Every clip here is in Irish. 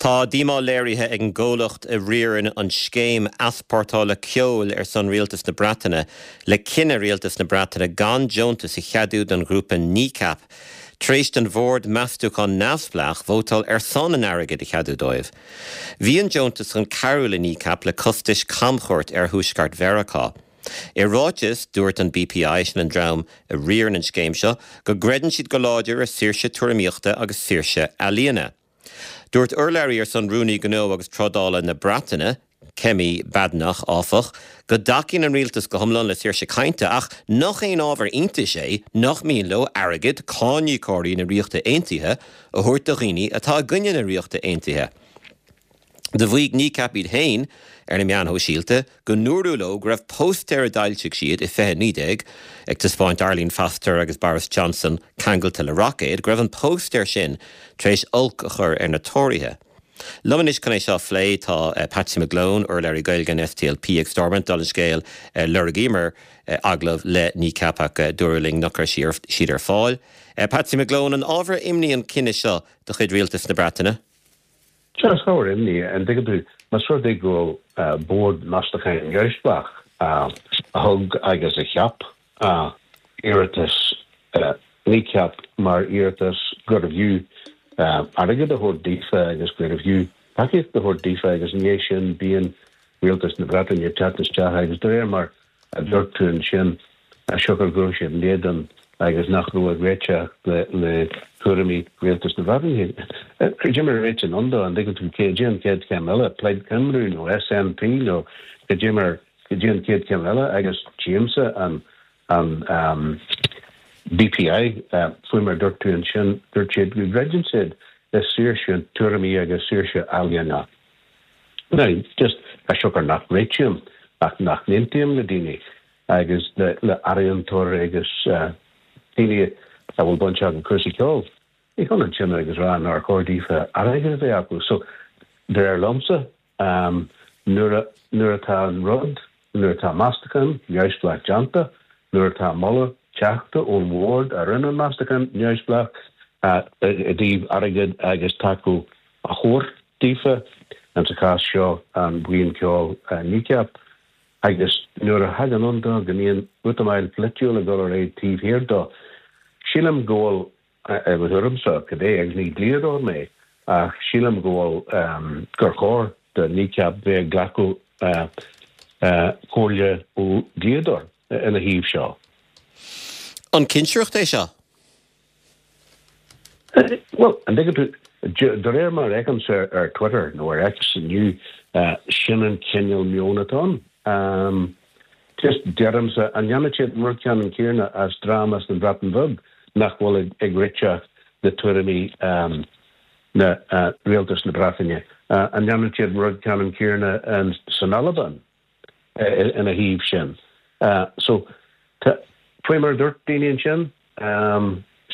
Tá díomá léirithe ag an gcomhlacht a riarann an scéim easpórtála ceoil ar son Rialtas na Breataine le cinneadh Rialtas na Breataine gan deontas a cheadú don ghrúpa Kneecap tar éis don bhord meastúcháin neamhspleách vótáil ar son an airgid a cheadú dóibh. Bhí an deontas chun cabhrú le Kneecap le costais camchuairt ar thuaisceart Mheiriceá. I ráiteas, dúirt an BPI, sin an dream a riarann an scéim seo, go gcreideann siad go láidir i saoirse tuairimíochta agus saoirse ealaíona. Dúirt urlabhraí ar son Rúnaí Gnó agus Trádála na Breataine, Kemi Badenoch, áfach, go dtacaíonn an rialtas go hiomlán le saoirse cainte ach nach aon ábhar iontais é nach mian leo airgead cáiníocóirí na Ríochta Aontaithe a thabhairt do dhaoine atá i gcoinne na Ríochta Aontaithe. Do mhaígh Kneecap iad féin ar na meáin shóisialta go ndúradh leo go raibh póstaer a d'fhoilsigh siad i 2019, ag taispeáint Arlene Foster agus Boris Johnson ceangailte le roicéad, go raibh an póstaer sin tar éis olc a chur ar na Tóraithe. Liom anois chun é seo a phlé tá Patsy McGlone, urlabhraí Gaeilge an SDLP ag Stormont. Dála an scéil, lorgaíomar agallamh le Kneecap ach dúradh linn nach raibh siad ar fáil. Patsy McGlone, an ábhar imní an cinneadh seo de chuid Rialtas na Breataine? Sea, is ábhar imní é. An dtuigeann tú, más rud é go bhfuil Bord Meastacháin Neamhspleách a thug agus a cheap iarratas Kneecap mar iarratas gurbh fhiú airgead a thabhairt daofa agus gurbh fhiú tacaíocht a thabhairt daofa agus i ndiaidh sin bíonn Rialtas na Breataine ag teacht isteach agus de réir mar a dúirt tú ansin, siocair go raibh siad in éadan agus nach raibh ag réiteach le tuairimí Rialtas na Breataine. Cad é mar a réitíonn ann dó, an dtuigeann tú, cad é an chéad chéim eile, Plaid Cymru nó SNP nó cad é mar, cad é an chéad chéim eile agus tchímse an an BPI, faoi mar a dúirt tú ansin, dúirt siad go gcreideann siad i saoirse tuairimí agus saoirse ealaíona. Now, just, as siocair nach réitím ach nach n-aontaím le daoine agus le ealaíontóirí agus daoine a bhfuil baint acu cúrsaí ceoil, ní hionann sin agus rá nár chóir daofa airgead a bheith acu. So, de réir liomsa, nuair a, nuair atá an rud, nuair atá meastachán neamhspleách déanta, nuair atá moladh teachta ón bhord a rinne an meastachán neamhspleách i dtaobh airgead agus tacú a thabhairt daofa, in sa chás seo an bhuíon ceoil Kneecap, agus nuair a thagann ann dó go mbíonn útamáil pholaitiúil ag dul ar aghaidh taobh thiar dó, sílim go bhfuil, i mo thuairimse, cibé, agus ní dlíodóir mé, ach sílim go bhfuil, gur chóir do Kneecap bheith ag glacadh comhairle ó dhlíodóir ina thaobh seo. An cinsireacht é seo? Bhuel, an dtuigeann tú, de réir mar a fheicimse ar Twitter nó ar X inniu, sin an cineál meoin atá ann. Just, deirimse, an ndéanfadh siad an rud ceannann céanna as dream as an Bhreatain Bheag nach bhfuil ag réiteach le tuairimí na rialtas na Breataine? An ndéanfadh siad an rud ceannann céanna san Albain? ina thaobh sin. So, tá, faoi mar a dúirt daoine ansin,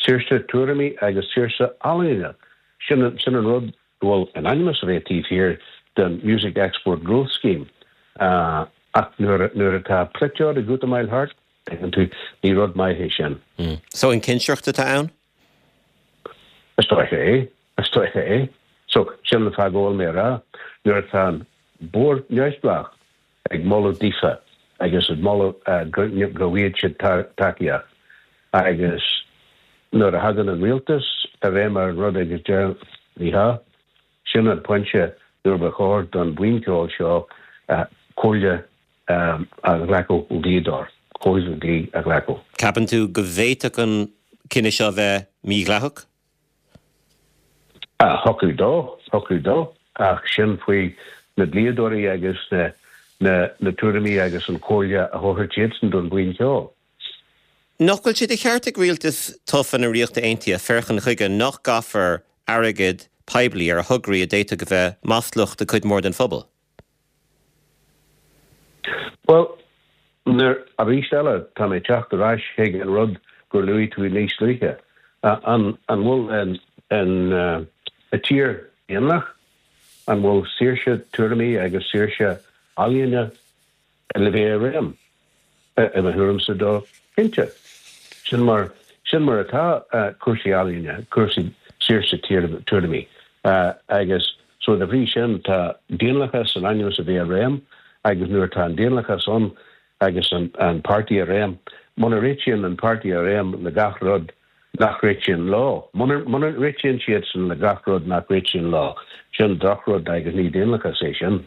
saoirse tuairimí agus saoirse ealaíne, sin an rud go bhfuil in ainm is a bheith taobh thiar den Music Export Growth Scheme. Ach nuair atá polaiteoir ag útamáil thart, tuigeann tú, ní rud maith é sin. So, an cinsireacht atá ann? Is dóiche é. Is dóiche é. So, sin an fáth go bhfuil mé a rá, nuair atá an Bord Neamhspleách ag moladh daofa agus ag moladh go bhfaighidh siad tacaíocht agus nuair a thagann an rialtas i réim ar an rud agus deir ní hea, sin an pointe nuair ba chóir don bhuíon ceoil seo comhairle a ghlacadh ó dhlíodóir, comhairle dlí a ghlacadh. Ceapann tú go bhféadfadh an cinneadh seo a bheith mídhleathach? Thiocfadh dó, thiocfadh dó, ach sin faoi na dlíodóirí agus na na tuairimí agus an chomhairle a thabharfaidh siadsan don bhuíon cheoil. Nach bhfuil sé de cheart ag rialtas tofa na Ríochta Aontaithe féachaint chuige nach gcaithfear airgead poiblí ar thograí a d'fhéadfadh a bheith maslach do chuid mhór den phobal? Bhuel, nuair, arís eile, tá mé ag teacht ar ais chuig an rud gur luaigh tú níos luaithe. An, an bhfuil an, an, an tír daonlathach, an bhfuil saoirse tuairimí agus saoirse ealaíne le bheith i réim? I mo thuairimse dó, cinnte. Sin mar, sin mar atá cúrsaí ealaíne, cúrsaí saoirse tuairimí. Agus. So de bhrí sin tá daonlathas in ainm is a bheith i réim agus nuair atá an daonlathas ann agus an páirtí i réim, muna réitíonn an páirtí i réim le gach rud nach réitíonn leo, muna réitíonn siadsan le gach rud nach réitíonn leo, sin drochrud agus ní daonlathas é sin.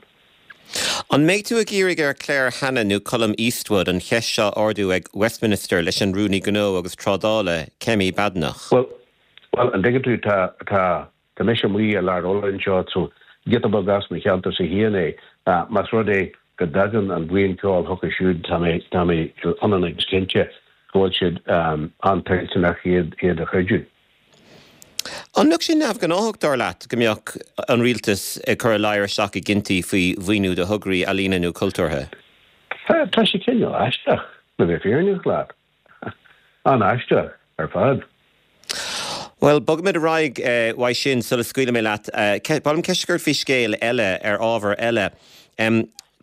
An mbeidh tú ag iarraidh ar Claire Hanna nó Colum Eastwood an cheist seo a ardú ag Westminster leis an Rúnaí Gnó agus Trádála, Kemi Badenoch? Bhuel, bhuel, an dtuigeann tú, tá, tá, tá mise amuigh i lár Uladh anseo, so giota beag as mo cheantarsa féin é. Más rud é go dtagann an bhuíon ceoil chucu siúd, tá mé, tá mé ionann agus cinnte go bhfuil siad an-toilteanach iad, iad a chreidiú. An mbeadh sé neamhghnáthach, dar leat, go mbeadh an rialtas ag cur a ladhar isteach i gcinntí faoi mhaoiniú do thograí ealaíne nó cultúrtha? Tá sé cineál aisteach, le bheith fírinneach leat. An-aisteach ar fad. Bhuel, bogfaimid ar aghaidh uaidh sin sula scaoilfidh mé leat. Ba mhaith liom ceist a chur ort faoi scéal eile, ar ábhar eile.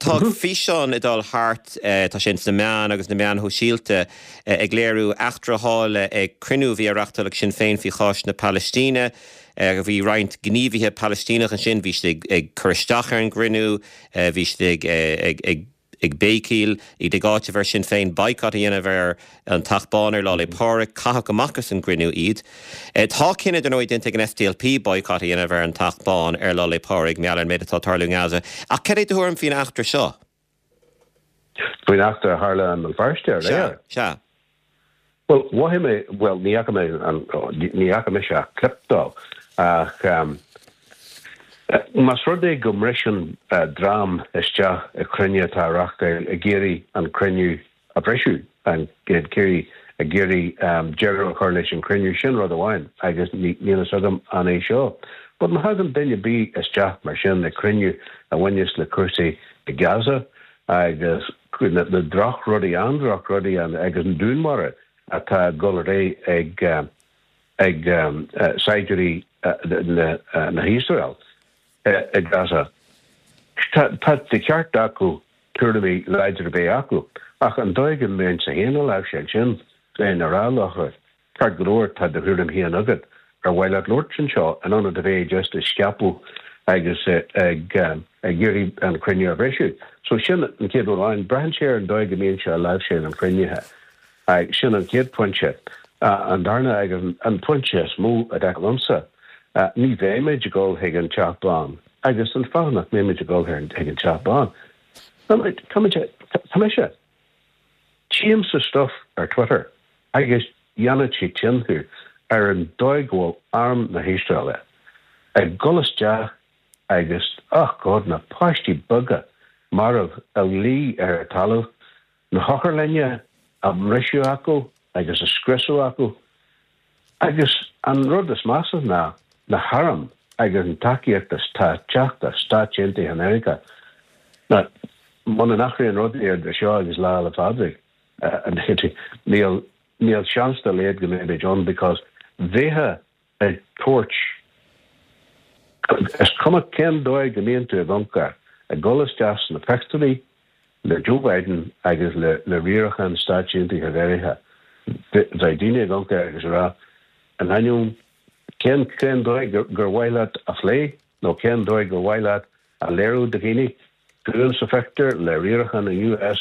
Tá físeán ag dul thart, tá sé ins na meáin agus na meáin shóisialta, ag léiriú eachtra a tharla ag cruinniú a bhí á reachtáil ag Sinn Féin faoi chás na Palaistíne. Bhí roinnt gníomhaithe Palaistíneach ansin, bhí siad ag cur isteach ar an gcruinniú, bhí siad ag ag béicíl, iad ag áiteamh ar Sinn Féin boycott a dhéanamh ar an Teach Bán ar Lá 'le Pádraig. Caitheadh amach as an gcruinniú iad. Tá cinneadh, dar ndóigh, déanta ag an SDLP boycott a dhéanamh ar an Teach Bán ar Lá 'le Pádraig, mar gheall ar an méid atá ag tarlú i nGaza. Ach cad é do thuairim faoin eachtra seo? Faoin eachtra a tharla i mBéal Feirste aréir? Sea, sea. Bhuel, mhothaigh mé, bhuel, ní fhaca mé an, ní fhaca mise ach clip dó, ach más rud é go mbriseann dream isteach i cruinniú atá á reachtáil ag iarraidh an cruinniú a bhriseadh, ag iarraidh, ag iarraidh deireadh a chur leis an chruinniú, sin rud amháin agus níl fhios agam an é seo. But má thagann duine ar bith isteach mar sin i cruinniú a bhaineas le cúrsaí i Gaza agus na drochrudaí, an-drochrudaí agus an dúnmharú atá ag dul ar aghaidh ag ag saighdiúirí na hIosrael i Gaza. Tá de cheart acu tuairimí láidre a bheith acu, ach an dóigh go mbeinnse féin á láimhseáil sin, bheinn ag rá leo, Ceart go leor, tá do thuairim féin agat. Ar mhaith leat labhairt anseo in ionad a bheith just ag scaipeadh agus ag iarraidh an cruinniú a bhriseadh? So sin an chéad rud amháin. Braitheann sé ar an dóigh go mbíonn sé á láimhseáil an chruinnithe. Sin an chéad phointe. An darna agus an pointe is mó a dar liomsa, ní bheimid ag dul chuig an Teach Bán. Agus an fáth nach mbeimid ag dul chuig an Teach Bán, tá tá mise. Tchímse stuff ar Twitter agus dhéanfadh sé tinn thú ar an dóigh go bhfuil arm na hIosraeile ag dul isteach agus, oh God, na páistí beaga marbh a luí ar an talamh, na hotharlainne á mbriseadh acu agus á scriosadh acu. Agus an rud is measa ná na hairm agus an tacaíocht atá ag teacht as Stáit Aontaithe Mheiriceá. Now, muna n-athraíonn rudaí idir seo agus Lá 'le Pádraig, níl, níl seans dá laghad go mbeimid ann because bheifeá ag tabhairt, is cuma cén dóigh go mbíonn tú ag amharc air, ag dul isteach sna pictiúirí le Joe Biden agus le riarachán Stáit Aontaithe Mheiriceá, bheadh daoine ag amharc air agus ag rá, in ainneoin cén cén dóigh gur mhaith leat a phlé nó cén dóigh gur mhaith leat a léiriú do dhaoine, tú sa phictiúr le riarachán an US,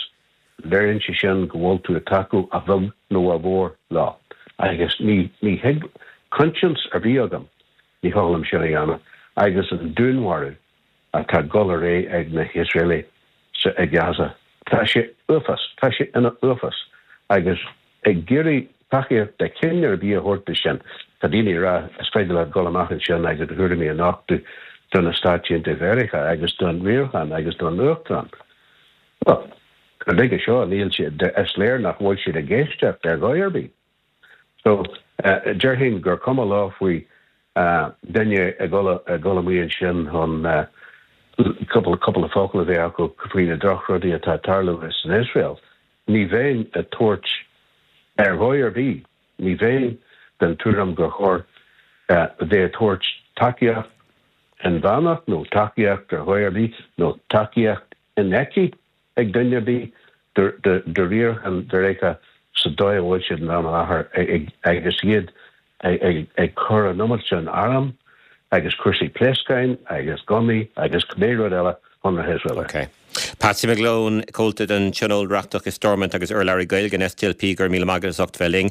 léiríonn sé sin go bhfuil tú ag tacú a bheag nó a mhór leo. Agus ní ní thig coinsias ar bith agam, ní thig liom sin a dhéanamh. Agus an dúnmharú atá ag dul ar aghaidh ag na hIosraelaigh sa i Gaza. Tá sé uafás, tá sé ina uafás. Agus ag iarraidh tacaíocht de chineál ar bith a thabhairt do sin, tá daoine ag rá is féidir leat dul amach ansin agus do thuairimí a nochtadh do na Stáit Aontaithe Mheiriceá agus don riarachán agus don Uachtarán. Bhuel, go nuige seo níl siad, is léir nach bhfuil siad ag éisteacht ar dhóigh ar bith. So, déarfainn gur cuma leo faoi duine ag dul amuigh ansin chun cúpla cúpla focal a bheith acu faoi na drochrudaí atá ag tarlú san Iosrael. Ní bheinn ag tabhairt ar dhóigh ar bith, ní bheinn den tuairim gur chóir bheith ag tabhairt tacaíocht inmheánach nó tacaíocht ar dhóigh ar bith nó tacaíocht infheicthe ag duine ar bith do riarachán Mheiriceá sa dóigh a bhfuil siad in am i láthair agus iad ag cur an iomad sin arm. agus cúrsaí pléascáin agus gunnaí agus cibé rud eile chun na hIosraeile. Ok. Patsy McGlone, Comhalta den Tionól Reachtach i Stormont agus urlabhraí Gaeilge an SDLP, go raibh míle maith agat as ucht bheith linn.